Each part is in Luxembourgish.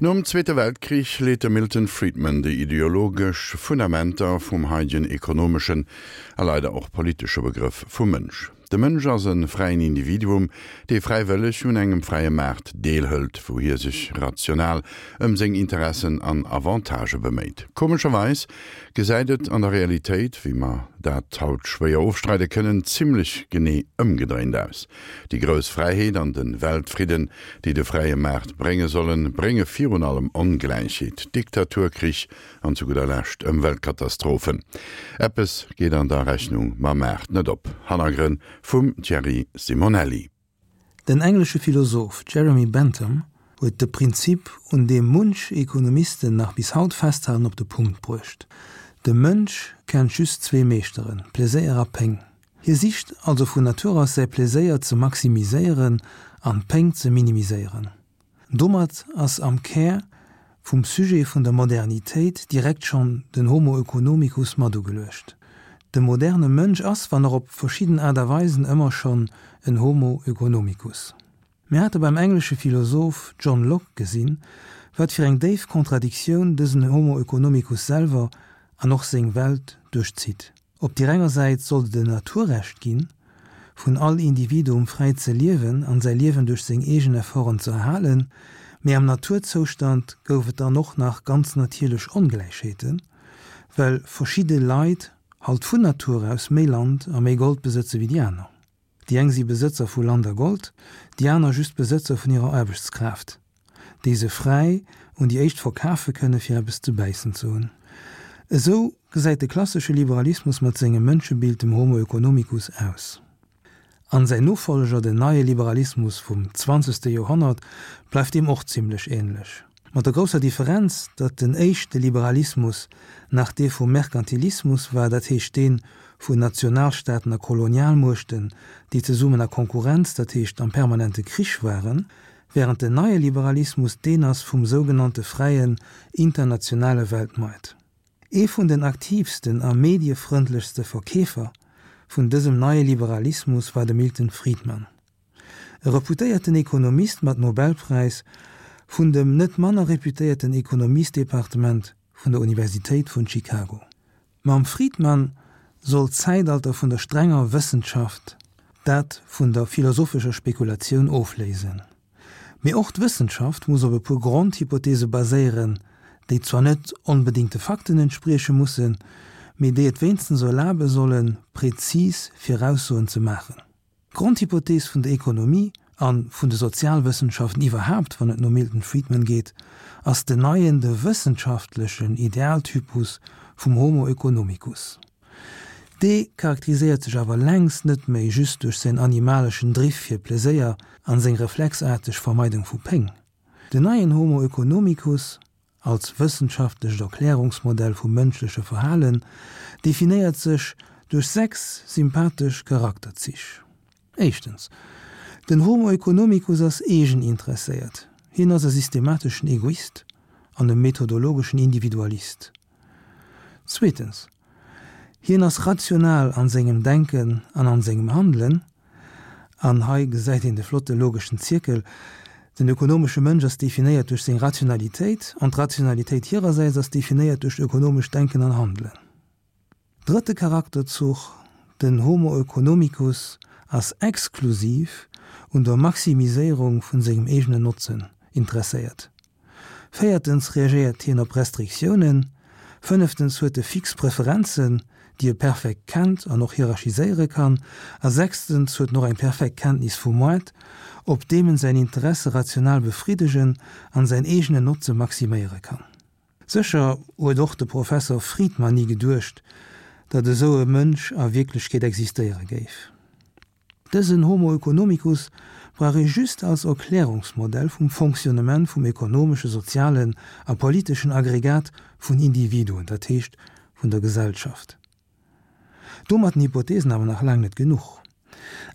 Nom Zweete Weltkrich leet de Milton Friedman déi ideologesch Fundamenter vum haidegen ekonomeschen a leider och politesche Begrëff vum Mënsch. De Mënsch ass e fräien Individuum, dee fräiwëlleg un engem fräie Maart deelhëlt, wou hie sech rational ëm seng Interessen an Avantagë beméit. Komescherweis gesäit et an der Realitéit, wéi mer dat haut schwéier ofstreide kënnen, zimmlech genee ëmgedréint aus. Déi grouss Fräiheet an de Weltfridden, déi de fräie Maart brénge sollen, brénge virun allem Ongläichheet, Diktatur, Krich an zu gudder Lescht Ëmweltkatastrophen. Eppes geet an der Rechnung mam Maart net op. Hannergrënn vum Thierry Simonelli. Den englesche Philosoph Jeremy Bentham huet de Prinzip, un deem munch Ekonomisten nach bis haut festhalen, op de Punkt bruecht, De Mënsch kennt just zwee Meeschteren, Pleséier a Péng. Hie sicht also vun Natur aus säi Pleséier ze maximiséieren an d'Péng ze minimiséieren. Domat ass am Kär vum Sujet vun der Modernitéit direkt schonn den Homo oeconomicus mat ugeluecht. De moderne Mënsch ass, wann och op verschidden Aart a Weisen, ëmmer schonn en Homo oeconomicus. Mir hate beim englesche Philosoph John Locke gesinn, wat fir eng déif Contradictioun dësen Homo oeconomicus selwer an och seng Welt duerchzitt. Op deer enger Säit sollt et en Naturrecht ginn, vun all Individuum fräi ze liewen an säi Liewen duerch seng eegen Efforten ze erhalen, mee am Naturzoustand gouf et dann och nach ganz natierlech Ongläichheeten, well verschidde Leit halt vun Natur aus méi Land a méi Gold besëtze wéi déi aner. Déi eng si Besëtzer vu Land a Gold, déi aner just Besëtzer vun hirer Aarbechtskraaft, déi se fräi un déi éischt verkafe kënne fir eppes ze bäissen ze hunn. Esou gesäit de klassesche Liberalismus mat sengem Mënschebild, dem Homo oeconomicus, aus. An säin Nofolleger, den neie Liberalismus vum zwanzegste Joerhonnert, bleift deem och zimlech änlech. Mat der grousser Differenz, datt den éischte Liberalismus nach dee vum Merkantilismus war, dat heescht dee vun Nationalstaaten a Kolonialmuechten, déi zesummen a Konkurrenz, dat heescht am permanente Krich waren, während den neie Liberalismus deen ass vum sougenannte fräien internationale Weltmoart. Ee vun den aktiivsten a mediefrëndlechste Verkeefer vun dësem neie Liberalismus war de Milton Friedman. E reputéierten Ekonomist mat Nobelpräis vun dem net manner reputéierten Ekonomiesdepartement vun der Universitéit vun Chicago. Mam Friedman soll d'Zäitalter vun der strenger Wëssenschaft dat vun der philosophescher Spekulatioun ofléisen. Mee och d'Wëssenschaft muss op e puer Grondhypothese baséieren, déi zwar net onbedéngt de Fakten entsprieche mussen, mee déi et wéinstens erlabe sollen, prezis Viraussoen ze maachen. D'Grondhypothees vun der Ekonomie, a vun de Sozialwëssenschaften iwwerhaapt, wann et no Milton Friedman geet, ass den neien, de wëssenschaftlechen Idealtypus vum Homo oeconomicus. Dee charakteriséiert sech awer längst net méi just duerch säin animaleschen Driff fir Pleséier an seng reflexaarteg Vermeidung vu Péng. Den neien Homo oeconomicus als wëssenschaftlecht Erklärungsmodell vum mënschleche Verhalen, definéiert sech duerch 6 sympathesch Charakterzich. Éischtens, den Homo economicus ass eegeninteresséiert, hien ass e systemateschen Egoist an e methodologeschen Individualist. Zweetens, hien ass rational an sengem Denken an an sengem Handelen, An hei gesäit een de flotte logeschen Zierkel, Den ökonomesche Mënsch ass definéiert duerch seng Rationalitéit, an d'Rationalitéit hirersäits ass definéiert duerch ökonomescht Denken an Handelen. Drëtte Charakterzuch, Den Homo oeconomicus ass exklusiv un der Maximiséierung vun sengem eegenen Notzen interesséiert. Véiertens reagéiert hien op Restriktiounen. Fënneftens huet e fix Preferenzen, déi e perfekt kennt an och hierarchiséiere kann. A sechstens huet en och eng perfekt Kenntnis vum Moart, op deem en säin Interesse rational befriddegen an säin eegenen Notze maximéiere kann. Sécher huet och de Professor Friedman ni geduecht, datt esou e Mënsch a Wierklechkeet existéiere géif. Dësen Homo oeconomicus brauch ee just als Erklärungsmodell vum Fonctionnement vum ekonomesche, sozialen a politeschen Aggregat vun Individuen, dat heescht vun der Gesellschaft. Domat den Hypothesen awer nach laang net genuch.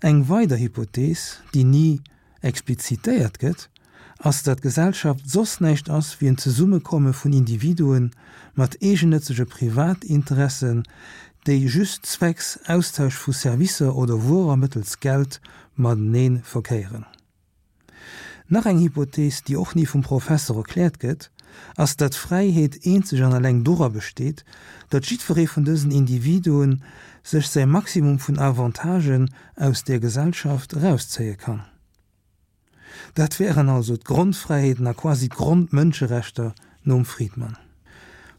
Eng weider Hypothees, déi ni explizitéiert gëtt, ass, datt Gesellschaft soss näischt ass wéi en Zesummekomme vun Individuen mat eegennëtzege Privatinteressen, déi just zwecks Austausch vu Servicer oder Wuerer mëttels Geld matenee verkéieren. Nach eng Hypothees, déi och ni vum Professer erkläert gëtt, ass, datt Fräiheet eenzeg an alleng dora besteet, datt jiddweree vun dësen Individuen sech säi Maximum vun Avantagen aus där Gesellschaft erauszéie kann. Dat wären also d'Grondfräiheeten a quasi d'Grondmënscherechter nom Friedman.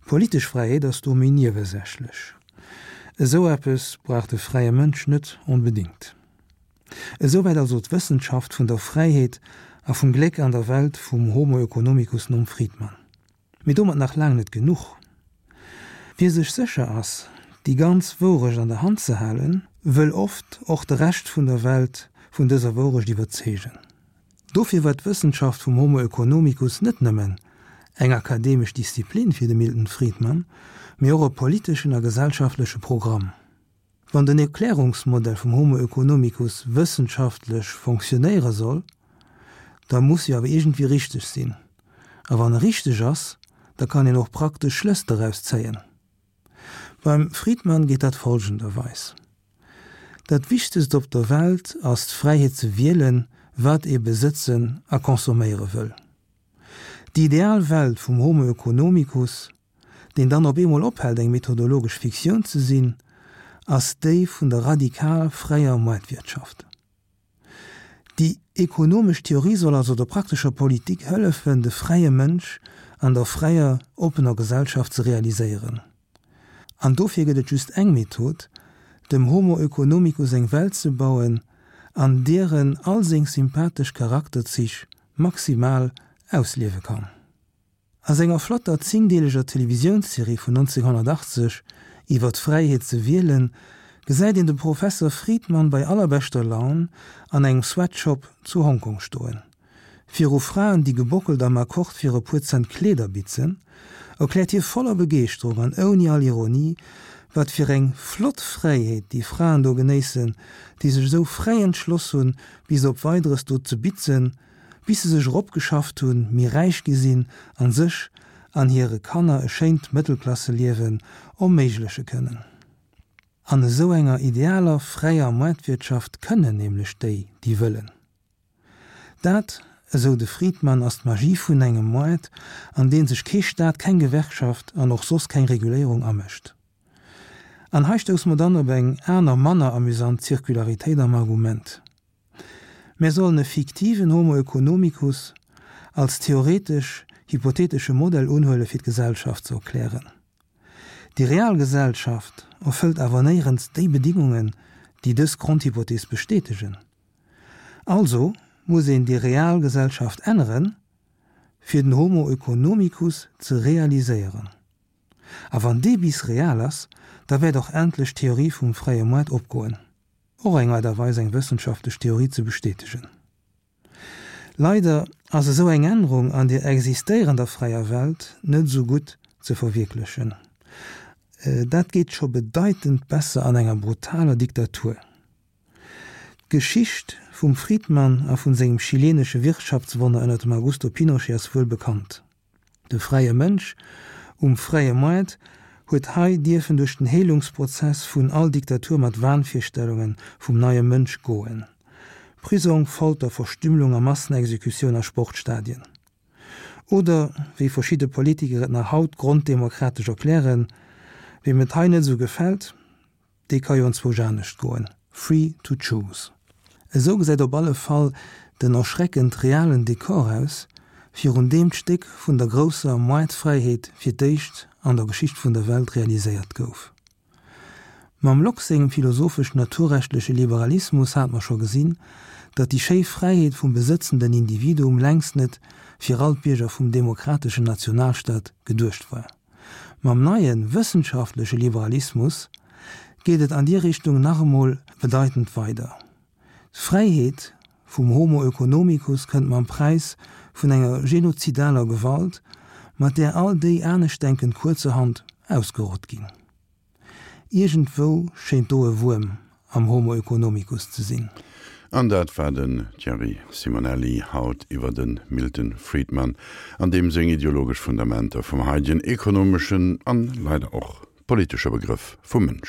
Politesch Fräiheet ass do méi niewesächlech. Esou eppes brauch de fräie Mënsch net onbedéngt. Esouwäit also d'Wëssenschaft vun der Fräiheet a vum Gléck an der Welt vum Homo oeconomicus nom Friedman. Mee domat nach laang net genuch. Wie sech sécher ass, déi ganz Wourecht an der Hand ze halen, wëll oft och de Rescht vun der Welt vun dëser Wourecht iwwerzeegen. Dofir war d'Wëssenschaft vum Homo oeconomicus net nëmmen eng akademesch Disziplin fir de Milton Friedman, mee och e politeschen a gesellschaftleche Programm. Wann den Erklärungsmodell vum Homo oeconomicus wëssenschaftlech fonctionnéiere soll, da muss e awer iergendwéi richteg sinn. A wann e richteg ass, da kann een och praktesch Schlëss doraus zéien. Beim Friedman geet dat folgenderweis, Dat Wichtegst op der Welt ass d'Fräiheet ze wielen, wat ee besëtzen a consomméiere wëll. Déi ideal Welt vum Homo oeconomicus deen dann op eemol ophält eng methodologesch Fiktioun ze sinn, ass déi vun der radikal fräier Moartwirtschaft. Déi ekonomesch Theorie soll also der praktescher Politik hëllefen, de fräie Mënsch an der fräier, oppener Gesellschaft ze realiséieren. An dofir gëtt et just eng Method, dem Homo oeconomicus eng Welt ze bauen, an deer en all seng sympathesch Charakterzich maximal ausliewe kann. A senger flotter zéngdeeleger Televisiounsserie vun 1980 iwwer d'Fräiheet ze wielen, gesäit een de Professer Friedman bei allerbeschter Laun an engem Sweatshop zu Hongkong stoen. Viru Fraen, déi gebockelt am Akkord fir e puer Cent Kleeder bitzen, erkläert hie voller Begeeschterung an ouni all Ironie, wat fir eng flott Fräiheet déi Fraen do genéissen, déi sech esou fräi entschloss hunn, bis op Weideres do ze bitzen, bis se sech eropgeschafft hunn, méi räich gi sinn an sech an hire Kanner e schéint Mëttelklasseliewen erméigleche kënnen. An esou enger idealer fräier Moartwirtschaft kënnen nämlech déi, déi wëllen. Dat, esou de Friedman, ass d'Magie vun engem Moart, an deen sech kee Staat, keng Gewerkschaft an och soss keng Reguléierung amëscht. An hei stousse mer dann op eng aner, manner amüsant Zirkularitéit am Argument. Mär sollen e fiktiven Homo oeconomicus als theoretesch hypotheetesche Modell unhuele fir d'Gesellschaft ze erklären. Déi real Gesellschaft erfëllt awer néierens déi Bedingungen, déi dës Grondhypothees bestätegen. Also muss een déi real Gesellschaft änneren, fir den Homo oeconomicus ze realiséieren. A wann dee bis real ass, da wäert och endlech d'Theorie vum fräie Moart opgoen. Och eng Aart a Weis eng wëssenschaftlech Theorie ze bestätegen. Leider ass esou eng Ännerung an der existéierender fräier Welt net esou gutt ze verwierklechen. Dat geet scho bedeitend besser an enger brutaler Diktatur. D'Geschicht vum Friedman a vun sengem chilenesche Wirtschaftswonner ënner dem Augusto Pinochet ass wuel bekannt. De fräie Mënsch um fräie Moart huet hei dierfen duerch den Heelungsprozess vun all Diktatur mat Wahnvirstellunge vum neie Mënsch goen. Prisong, Folter, Verstümmelung a Massenexekutioun a Sportstadien. Oder, wéi verschidde Politiker et nach haut gronddemokratesch erklären, Weem et hei net esou gefält, Dee ka jo enzwousch anescht goen, free to choose. Esou gesäit op alle Fall den erschreckend realen Dekor aus, virun deem d'Stéck vun der grousser Moartfräiheet fir d'éischt an der Geschicht vun der Welt realiséiert gouf. Mam Locke sengem philosophesch-naturrechtleche Liberalismus hat mer scho gesinn, datt déi schéi Fräiheet vum besëtzenden Individuum längst net fir all d'Bierger vum demokrateschen Nationalstaat geduecht war. Mam neie wëssenschaftleche Liberalismus geet et an déi Richtung nach emol bedeitend weider. D'Fräiheet vum Homo oeconomicus kënnt mam Präis vun enger genozidaler Gewalt, mat där all déi Aneschtdenkend kuerzerhand ausgerott ginn. Iergendwou schéint do e Wuerm am Homo oeconomicus ze sinn. An dat war den Thierry Simonelli haut iwwer de Milton Friedman an deem seng ideologesch Fundamenter vum haidegen ekonomeschen an leider och politesche Begrëff vum Mënsch.